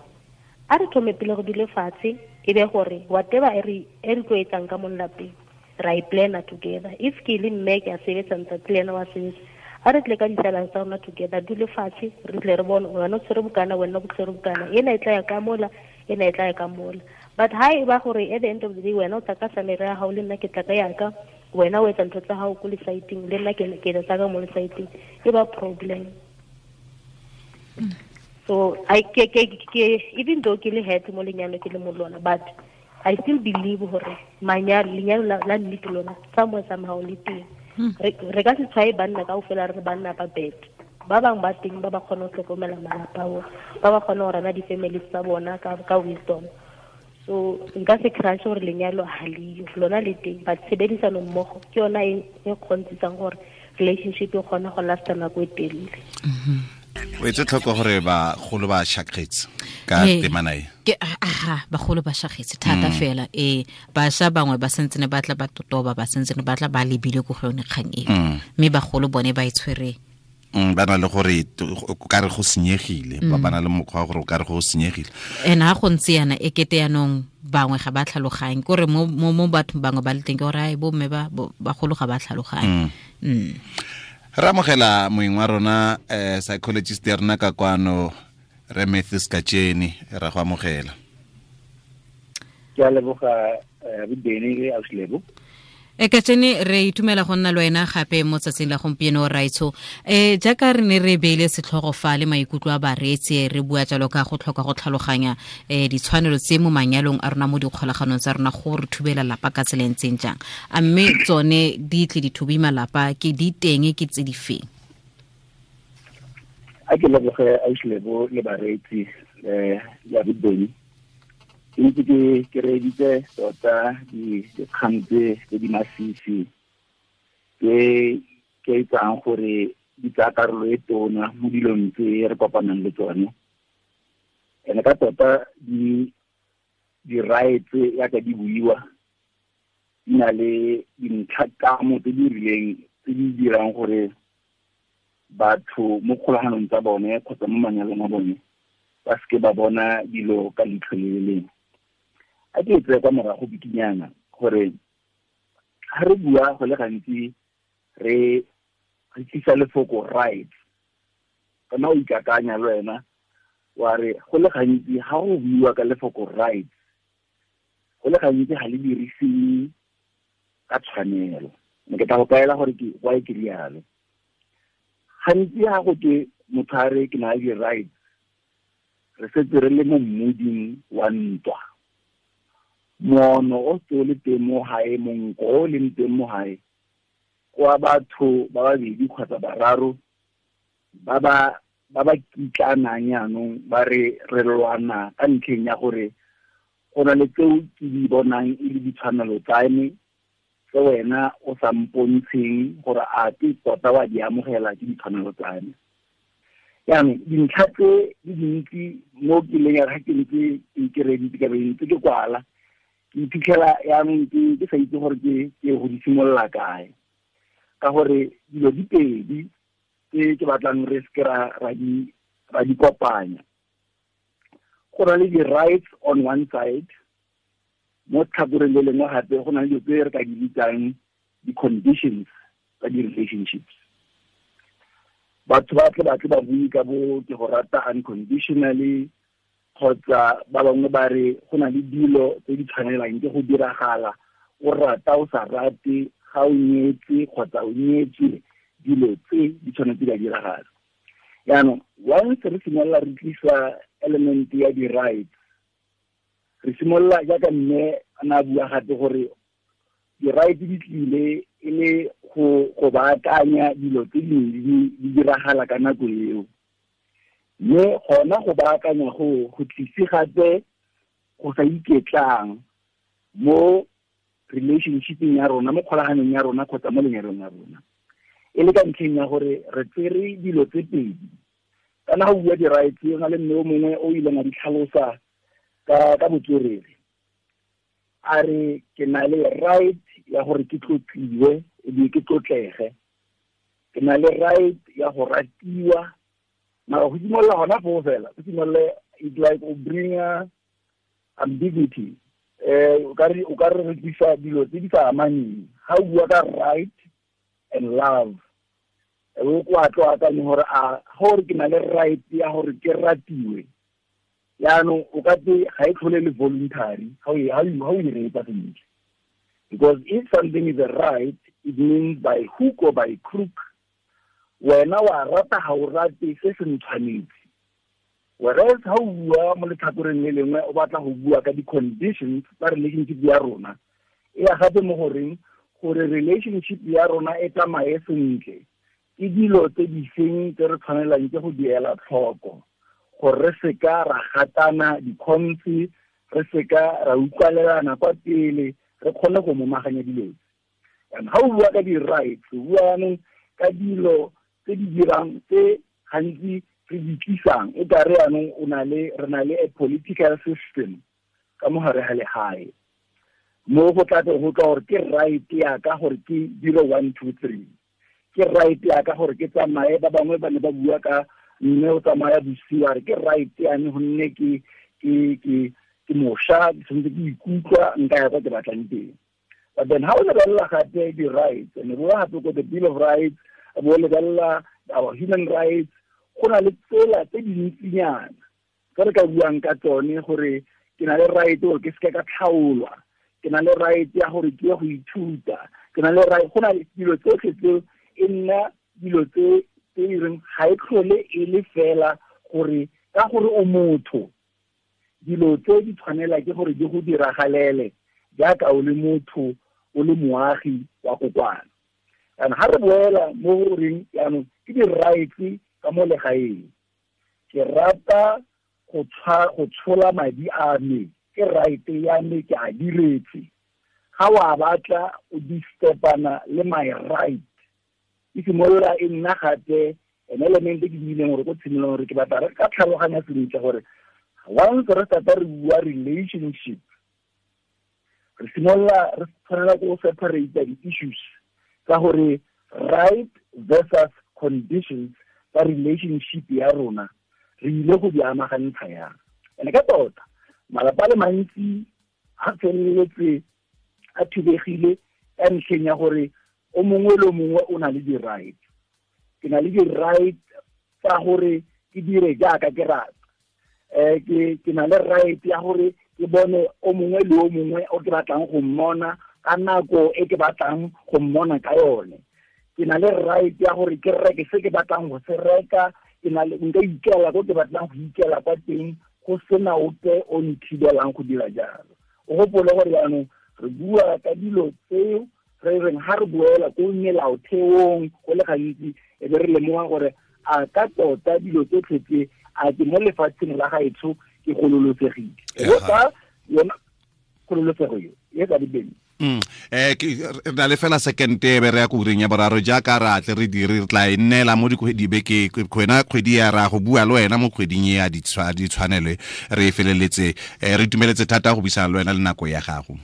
A re thome pele go dule fatshe e be gore whatever e re tlo etsang ka mo lelapeng ra e plana together. If ke le mme ke a sebetsa ntate le ena wa sebetsa, a re tle ka ditsalana tsa rona together, dule fatshe re tle re bone wena o tshwere bokana, wena o tshwere bokana, ena e tla ya ka mola, ena e tla ya ka mola. But ha e ba gore at the end of the day wena o tla ka salary ya hao le nna ke tla ka yaka, wena o etsa ntho tsa hao ko lesaeteng le nna ke etsa ka mo lesaeteng, e ba problem. So I ke even though ke le head mo lenyalo ke le mo lona, but I still believe hore manyalo lenyalo la nnete lona somewhere somehow le teng. Re ka se tshwae banna kaofela re banna ba bad. Ba bang ba teng ba ba kgona ho hlokomela malapa a bona, ba ba kgona ho rana di-families tsa bona ka wisdom. So nka se crash gore lenyalo ha leyo, lona le teng, but tshebedisano mmogo ke yona e kgontsisang gore relationship e kgona go lasta nako e telele. O etse tlhoko gore bagolo ba shakgetse ka temana e. Ke aha, bagolo ba shakgetse thata fela. Bašwa bangwe ba sentse ne ba tla ba totoba, ba sentse ne ba tla ba lebile ko go yone kgang eo. Mme bagolo bone ba e tshwere. Ba na le gore o ka re go senyegile, ba na le mokgwa wa gore o ka re go senyegile. Ene ha go ntse yana e kete yanong bangwe ga ba tlhaloganye, kore mo mo bathong bangwe ba le teng ke gore ai bo mme ba bagolo ga ba tlhaloganye. Re amogela moeng wa rona psychologist ya rona ka kwano, re Matthews Kacheni, ra go amogela. Ke a leboga Bobeni le Ausilebo. Kacheni, re itumela go nna le wena gape mo tsatsing la gompieno raitsho. Jaaka re ne re beile setlhogo fa le maikutlo a bareetsi, re bua jalo ka go tlhoka go tlhaloganya ditshwanelo tse mo manyalong a rona mo dikgolaganong tsa rona go re thubela lapa ka tsela e ntseng jang. A mme tsone di tle di thubi malapa ke di teng ke tse di feng? A ke leboge Ausilebo le bareetsi ya Bobeni. Ntse ke reeditse tota dikgang tse di masisi ke itsang gore di tsaya karolo e tona mo dilong tse re kopanang le tsone. Ene ka tota di-rights yaka di buiwa di na le dintlhakamo tse di rileng tse di dirang gore batho mo kgolaganong tsa bone kgotsa mo manyalong a bone ba seke ba bona dilo ka leitlho le le lengwe. A ke tseye kwa morago bikinyana gore ga re bua go le gantsi re tlisa lefoko right. Kana o ikakanya le wena wa re go le gantsi ga go buiwa ka lefoko right, go le gantsi ga le dirisiwe ka tshwanelo. Mme ke tla go kaela gore ke why ke rialo. Gantsi ga go twe motho a re ke na le di-rights, re setse re le mo mmoding wa ntwa. Moono o se o le teng mo gae, monko o leng teng mo gae, kwa batho ba babedi kgotsa bararo ba ba kitlanang jaanong ba re re lwana ka ntlheng ya gore go na le tseo ke di bonang e le ditshwanelo tsa me tse wena o sa mpontsheng gore a ke tota wa di amogela ke ditshwanelo tsa me. Jaanong dintlha tse di dintsi mo ke leng ya ga ke ntse ke reditse ka be ntse ke kwala, ke iphitlhela jaanong ke sa itse gore ke go di simolola kae, ka gore dilo di pedi tse ke batlang re seke ra di kopanya. Go na le di-rights on one side, mo tlhakoreng le lengwe gape go na le dilo tse re ka di bitsang di-conditions tsa di-relationships. Batho ba tle ba bue ka bo ke go rata unconditionally, kgotsa ba bangwe ba re go na le dilo tse di tshwanelang ke go diragala, o rata o sa rate, ga o nyetse kgotsa o nyetswe, dilo tse di tshwanetse di a diragala. Jaanong once re simolola re tlisa element ya di-rights, re simolola jaaka mme a ne a bua gape gore di-rights di tlile e le go baakanya dilo tse dingwe di diragala ka nako eo. Mme gona go baakanya go tlise gape go sa iketlang mo relationshipeng ya rona, mo kgolaganong ya rona kgotsa mo lenyalong ya rona. E le ka ntlheng ya gore re tsere dilo tse pedi. Kana ga o bua di-rights, go na le mme o mongwe o ileng a di tlhalosa ka botswerere. A re ke na le right ya gore ke tlotliwe ebile ke tlotlege, ke na le right ya go ratiwa. Mara go simolola gona foo fela, go simolole it's like o bring ambiguity. O ka re re tlisa dilo tse di sa amaneng. Ga o bua ka right and love, o kwa tlo akanye gore a gore ke na le right ya gore ke ratiwe. Jaanong o ka te ga e tlhole le voluntary ga o e reetsa sentle. Because if something is a right, it means by hook or by crook, wena wa rata ga o rate se se ntshwanetse. Whereas ha o bua mo letlhakoreng le lengwe o batla go bua ka di-conditions tsa relationship ya rona, e ya gape mo goreng gore relationship ya rona e tsamaye sentle, ke dilo tse di feng tse re tshwanelang ke go di ela tlhoko gore re seka ra gatana dikhonse, re seka ra utlwalelana kwa pele, re kgone go momaganya dilo tse. And ha o bua ka di-rights, o bua jaanong ka dilo tse di dirang tse gantsi re di tlisang e ka re jaanong re na le a political system ka mo gare ga legae, mo go tla go tla gore ke right ya ka gore ke dire 1 2 3, ke right ya ka gore ke tsamaye. Ba bangwe ba ne ba bua ka mme o tsamaya bosigo, a re ke right ya me gonne ke mošwa, ke tshwanetse ke ikutlwa nka ya kwa ke batlang teng. But then ha o lebelela gape di-rights, and bo gape ko the Bill of Rights, bo lebelela our human rights, go na le tsela tse dintsinyana tse re ka buang ka tsone gore ke na le right gore ke seke ka tlhaolwa, ke na le right ya gore ke ye go ithuta, ke na le right. Go na le dilo tsotlhe tseo e nna dilo tse di reng ga e tlhole e le fela gore ka gore o motho, dilo tse di tshwanela ke gore di go diragalele jaaka o le motho, o le moagi wa kokwana. And ha re boela mo goreng jaanong ke di-rights ka mo legaeng, ke rata go tshola madi a me, ke right ya me, ke a diretse. Ga wa batla o distepana le my right, e simolola e nna gape an element e ke buileng gore ko tshimolong gore ke batla re ka tlhaloganya sentle gore once re start re bua relationship, re simolola re tshwanela go separate di-issues ka gore right versus conditions tsa relationship ya rona re ile go di amagantsha yang. And ka tota malapa a le mantsi a feleletse a thubegile ka ntlheng ya gore o mongwe le mongwe o na le di-right. Ke na le di-right tsa gore ke dire jaaka ke rata. Ke na le right ya gore ke bone o mongwe le o mongwe o ke batlang go mmona ka nako e ke batlang go mmona ka yone. Ke na le right ya gore ke reke se ke batlang go se reka, ke na le nka ikela ko ke batlang go ikela kwa teng, go sena ope o nthibelang go dira jalo. O gopole gore jaanong re bua ka dilo tseo re reng ha re buela ko melaotheong go le gantsi e be re lemoga gore a ka tota dilo tsotlhe tse a ke mo lefatsheng la gaetsho ke gololosegile. Go ka yona kgololosego eo e ka dibeng. Re na le fela second e be re ya ko ureng ya boraro jaaka re atle re dire re tla e nnela mo dibeke kgwena kgwedi ya ra go bua le wena mo kgweding e ya ditshwanelo re e feleletse. Re itumeletse thata go buisana le wena le nako ya gago.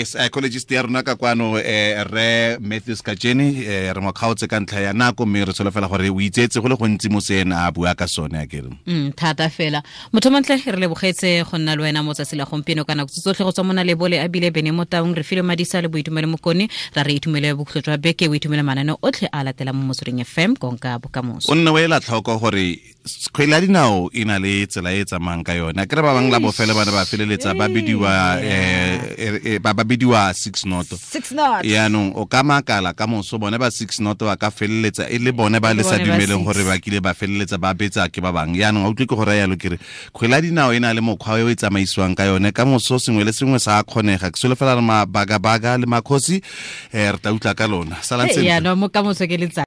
Psychologist ya rona ka kwano re Matthews Kajeni re mo kgaotse ka ntlha ya nako mme re tsholofela gore o itsetse go le gontsi mo se ena a bua ka sone a kere. Thata fela motho montle re lebogetse go nna le wena mo tsatsi la gompieno ka nako tsotlhe go tswa mona lebole a bile bene mo taung re file madisa le boitumelo mokone ra re itumele bokhutlo jwa beke o itumele manane otlhe a latelang mo Motsweding FM konka bokamoso. O nne o ela tlhoko gore kgwele ya dinao e na le tsela e tsamayang ka yone. Akere ba bangwe la bofelo ba ne ba feleletsa ba bidiwa ba bidiwa 6 not. 6 not. Yaanong o ka makala ka moso bone ba 6 not ba ka feleletsa e le bone ba le sa dumeleng gore ba kile ba feleletsa ba betsa ke ba bangwe. Yaanong a utlwe ke go raya yalo ke re kgwele ya dinao e na le mokgwa o e tsamaisiwang ka yone ka moso sengwe le sengwe sa kgonega. Ke solofela re mabagabaga le makgosi re tla utlwa ka lona. Salang sentle. Yaanong mo ka moso ke letsatsi.